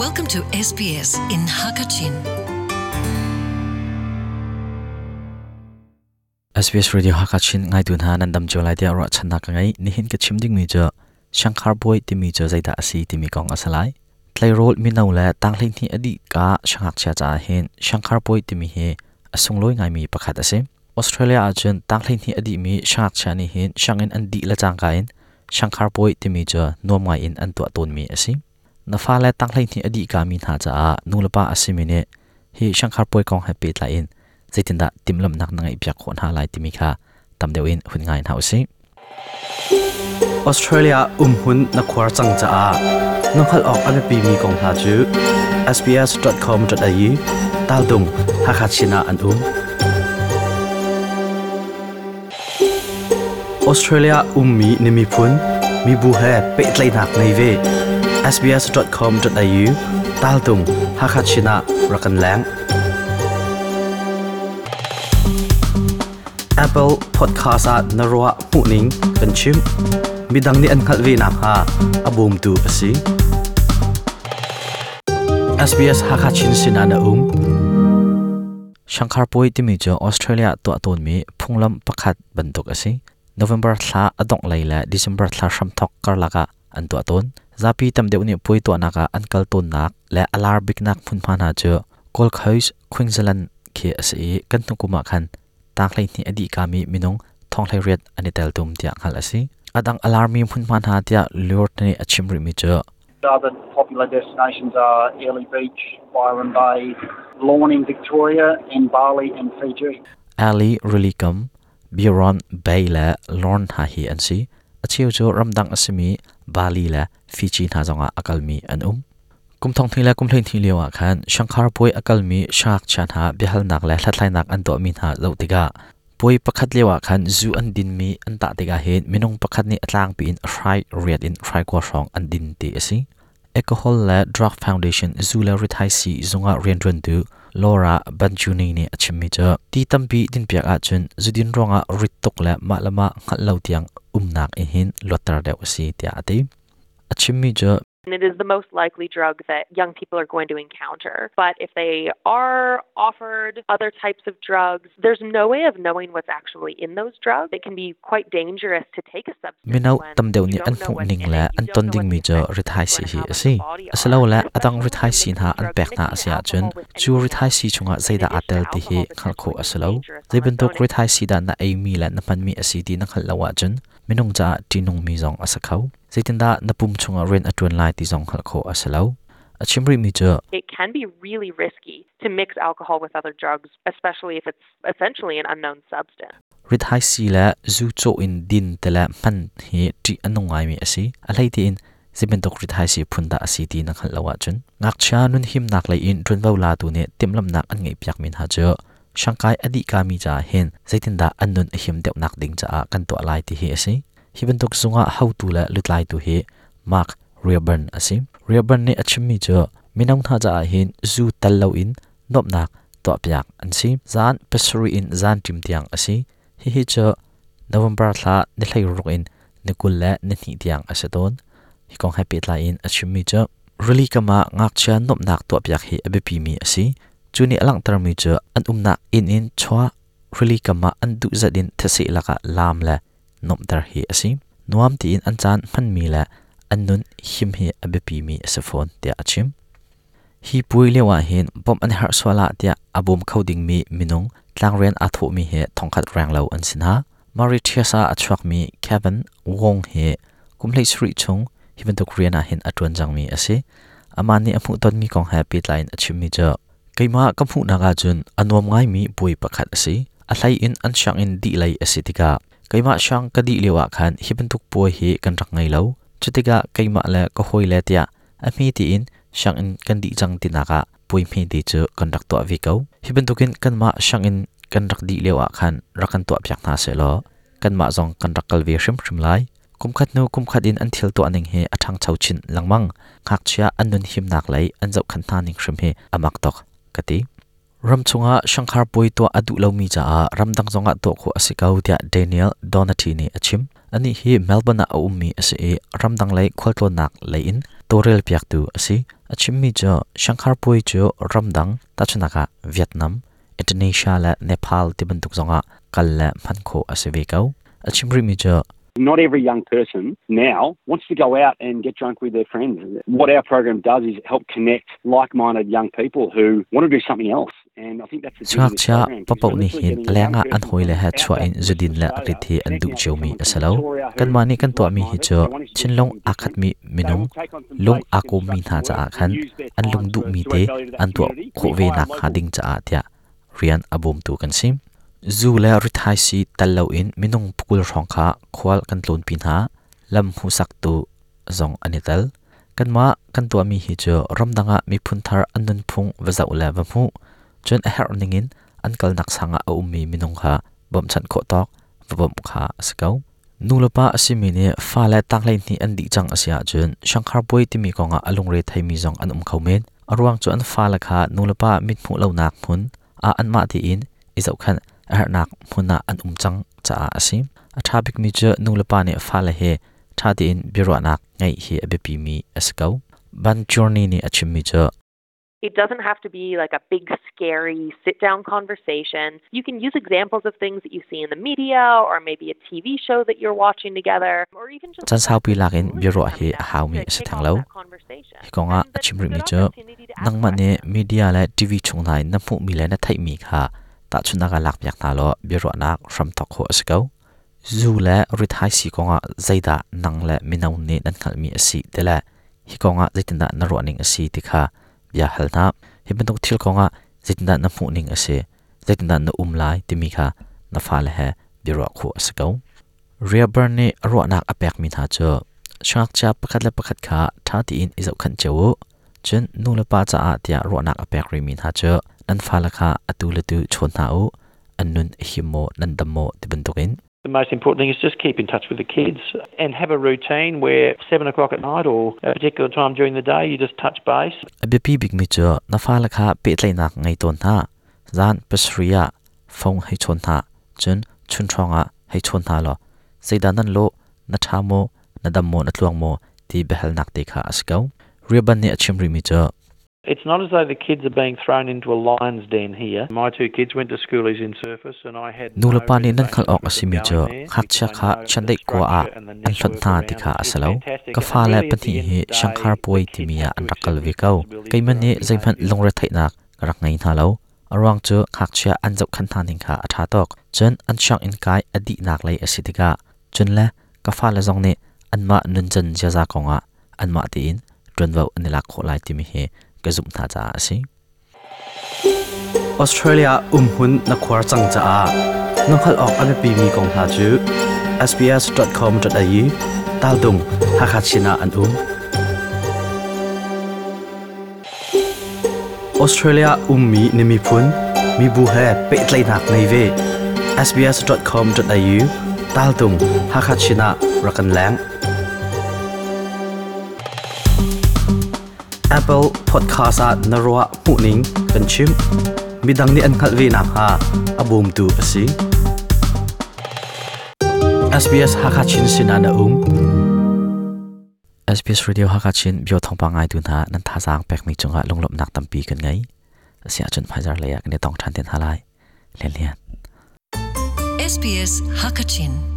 Welcome to SBS in Hakachin. SBS Radio Hakachin ngaitu hna nan dam cio lai tiah ruahchannak ka ngei. Nihin ka chim dingmi cu Shankar Boy timi cu zeidah a si timi kong a si lai. Tleirawl mino le tanghleihnih a dih ka siangngakchia caah hin Shankar Boy timi hi a sunglawi ngaimi pakhat a si. Australia ahcun tanghleihnih a dihmi siangngakchia nih hin sianginn an dih le cangka in Shankar Puai timi cu nuam ngai in an tuah tawnmi a si. Na fale tanghleihnih a dih kami hna caah nulepa a simi nih hi Shankar Puai kong he pehtlai in zeitindah timhlamhnak na ngeihpiak khawh hna lai timi kha tam deuh in hun ngai hna usih. Australia umhmun na khuar cang caah na hngalh awk a biapimi kong hna cu sbs.com.au taldung Hakha Chin ah an um. Australia ummi na miphun mibu he pehtlaihnak ngei ve. sbs.com.au taltung Hakha Chin ah rak kan leng. Apple Podcast ah na ruah hmuhning kan chim. Midang nih an hngalh ve nakhnga a bawmtu a si. SBS Hakha Chin sinah na um. Shankar Puai timi cu Australia tuah tawnmi phunglam pakhat bantuk a si. November thla a dongh lei le December thla hramthawk karlak ah an tuah tawn. Zapi tam deuh nih puai tuahnak ah an kal tawnnak le a lar biknak hmunhma hna cu Gold Coast, Queensland khi a si i kan hnu kum ah khan tang 12 a dih kami minung thong 18 an i teltum tiah hngalh a si. A dang a larmi hmunhma hna tiah Lord nih a chim rihmi cu Other popular destinations are Airlie Beach, Byron Bay, Lorne in Victoria, and Bali and Fiji. Airlie Rilikam, Byron Bay le Lorne hna hi an si. A cheu cu ramdang a simi Bali le Fiji hna zongah a kalmi an um. Kum thong hnih le kum 12 lio ah khan Shankar puai a kalmi siangngakchia hna biahalnak le hlathlainak an tuahmi hna zoh tikah puai pakhat lio ah khan zu an dinmi an tah tikah hin minung pakhat nih a tlangpi in a hrai riat in hrai kua hrawng an din ti a si. Alcohol le Drug Foundation zu le rithaisii zungah rianṭuantu Laura Banjuni nih a chimmi cu ti tampi dinpiak ahcun zudin ruangah rit tuk le mah le mah hngalh lo tiang umnak in hin luatter deuh a si tiah a ti. A chimmi cu It is the most likely drug that young people are going to encounter. But if they are offered other types of drugs, there's no way of knowing what's actually in those drugs. It can be quite dangerous to take a substance Mino tam deuh nih an hmuh ning le an ton dingmi cu rithaisii hi a si. Asilole a dang rithaisii hna an pek hna a si ahcun cu rithaisii chungah zeidah aa tel ti hi hngalh khawh a si lo. Zei bantuk rithaisii dah na eimi le na hmanmi a si ti na hngalh lo ahcun minung caah ṭihnungmi zong a si kho. Zeitindah na pum chungah rian a ṭuan lai ti zong hngalh khawh a si lo. A chim rihmi cu It can be really risky to mix alcohol with other drugs, especially if it's essentially an unknown substance. Rithaisii le zu cawh in din te le hman hi ṭih a nung ngaimi a si. A hlei tiin zei bantuk rithaisii phun dah a si ti na hngalh lo ahcun ngakchia nunhimnak lei in ṭuanvo latu nih timhlamhnak an ngeihpiakmi hna cu Shanghai a dih kami caah hin zeitindah an nun a him deuhnak ding caah kan tuah lai ti hi a si. Hi bantuk zungah hotu le lutlaitu hi Mark Reaburn a si. Reaburn nih a chimmi cu mino hna caah hin zu tel loin nuamhnak tuahpiak an si. Zan pasarih in zan ṭim tiang a si. Hihi cu November thla ni 16 in ni 22 tiang a si tawn. Hi kong he pehtlai in a chimmi cu rili kam ah ngakchia nuamhnak tuahpiak hi a biapimi a si. Cu nih a langhtermi cu an umnak inn in chuah rili kam ah an duh zat in thaseh lakah laam le nuamhter hi a si. Nuam tiin an caan hmanmi le an nun him hi a biapimi a si fawn tiah a chim. Hi puai lio ah hin bawmh an herh sual ah tiah a bawm kho dingmi minung tlangrian aa thawhmi hi thongkhat renglo an si hna. Mauritius ah a chuakmi Kevin Wong hi kum 17 chung hi bantuk rian ah hin a ṭuan cangmi a si. Amah nih a hmuhtonmi kong he pehtlai in a chimmi cu keimah ka hmuhnak ahcun a nuam ngaimi puai pakhat a si. A hlei in an sianginn dih lei a si tikah keimah siang ka dih lio ah khan hi bantuk puai hi kan rak ngei lo. Cutikah keimah le ka hawile tiah a hme tiin sianginn kan dih cang tinak ah puai hmete cu kan rak tuah ve ko. Hi bantukin kanmah sianginn kan rak dih lio ah khan rak kan tuahpiak hna sehlaw kanmah zong kan rak kal ve hrimhrim lai. Kumkhat hnu kumkhat in an thil tuah ning hi a ṭhangcho chin lengmang. Ngakchia an nun himnak lei an zohkhenh hna ning hrim hi a mak tuk ka ti. Ram chungah Shanghai puai tuah a duh lomi caah ramdang zongah tuah khawh a si ko tiah Daniel Donati nih a chim. Anih hi Melbourne ah a ummi a si i ramdang lei khualtlawnnak lei in Tawlrel piaktu a si. A chimmi cu Shanghar puai cu ramdang tahchunhnak ah Vietnam, Indonesia le Nepal ti bantuk zongah kal le hman khawh a si ve ko. A chim rihmi cu Not every young person now wants to go out and get drunk with their friends. What our program does is help connect like-minded young people who want to do something else. Siangngakchia paohpaoh nih hin a lengah an hawile he chuah in zudin le rit hi an duh ciomi a si lo. Kanmah nih kan tuahmi hi cu thinlung aa khatmi minung, lung aa kawmmi hna caah khan an lung duhmi te an tuah khawh ve nakhnga ding caah tiah rian a bawmtu kan si. Zu le rithaisii tel loin minung pakul hrawng kha khual kan tlawnpi hna, lam hmuhsaktu zong an i tel. Kanmah kan tuahmi hi cu ramdang ah miphun thar an nunphung va zoh le va hmuh, cun a herh ningin an kalnak sang ah a ummi minung kha bawmhchanh khawh tawk va bawmh kha a si ko. Nulepa a simi nih fale tanghleihnih an dih cang a si ahcun Shanghar Puai timi kongah a lungre theimi zong an um kho men. A ruang cu an fale kha nulepa mithmuh lonak hmun ah anmah tein i zohkhenh a herhnak hmun ah an um cang caah a si. A ṭha bikmi cu nulepa nih fale he ṭha tein biaruahnak ngeih hi a biapimi a si ko. Ban Journey nih a chimmi cu It doesn't have to be like a big, scary sit down conversation. You can use examples of things that you see in the media or maybe a TV show that you're watching together or even just Caan saupi lak in biaruah hi a haumi a si theng lo. Hi kongah a chim rihmi cu nangmah nih media le TV chung hna in na hmuhmi le na theihmi kha tahchunhnak ah lakpiak hna law biaruahnak hram thawk khawh a si ko. Zu le rithaisii kongah zeidah nang le mino nih nan hngalhmi a si ti le hi kongah zeitindah na ruahning a si ti kha bia hal hna. Hi bantuk thil kongah zeitindah na hmuhning a si, zeitindah na um lai timi kha na fale he biaruah khawh a si ko. Rehoboam nih a ruahnak a pekmi hna cu siangngakchia pakhat le pakhat kha ṭha tein i zohkhenh cio u. Cun nu le pa caah tiah ruahnak a pek rihmi hna cu nan fale kha atu le tu chawn hna u, an nun a him maw, nan dam maw ti bantukin. The most important thing is just keep in touch with the kids and have a routine where 7 o'clock at night or a particular time during the day you just touch base. A biapi bikmi cu na fale kha pehtlaihnak ngei tawn hna. Zan pasarih ah phone hei chawn hna, cun chun hrawng ah hei chawn hna law zeidah nan lawh, na ṭha maw, na dam maw, na tluang maw ti biahalnak te kha a si ko. Riaban nih a chim rihmi cu It's not as though the kids are being thrown into a lion's den here. My two kids went to schoolies in Surface and I had no Nulepa nih nan hngalh awk a simi cu ngakchia kha chiandeih kua ah an hlonh hna ti kha a si lo. Ka fale pahnih hi Shanghar Puai timi ah an rak kal ve ko. Keimah nih zeihmanh lungretheihnak ka rak ngei hna lo. A ruang cu ngakchia an zohkhenh hna ning kha a ṭha tuk. Cun an sianginn kai a dihnak lei a si tikah cun le ka fale zong nih anmah nuncan ziaza kongah anmah tein ṭuanvo an i lak khawh lai timi hi ka zumh hna caah a si. Australia umhmun na khuar cang caah na hngalh awk a biapimi kong hna cu sbs.com.au taldung Hakha Chin ah an um. Australia ummi na miphun mibu he pehtlaihnak ngei ve. sbs.com.au taltung Hakha Chin ah rak kan leng. Apple Podcast ah na ruah hmuhning kan chim. Midang nih an hngalh ve nakhnga a bawmtu a si. SBS Hakha Chin sinah na um. SBS Radio Hakha Chin bio thawngpang ngaitu hna nan thazaang pekmi cungah lunglawmhnak tampi kan ngei. Asiahcun hmaizar lei ah kan i tong ṭhan te hna lai. Lian Lian. SBS Hakachin.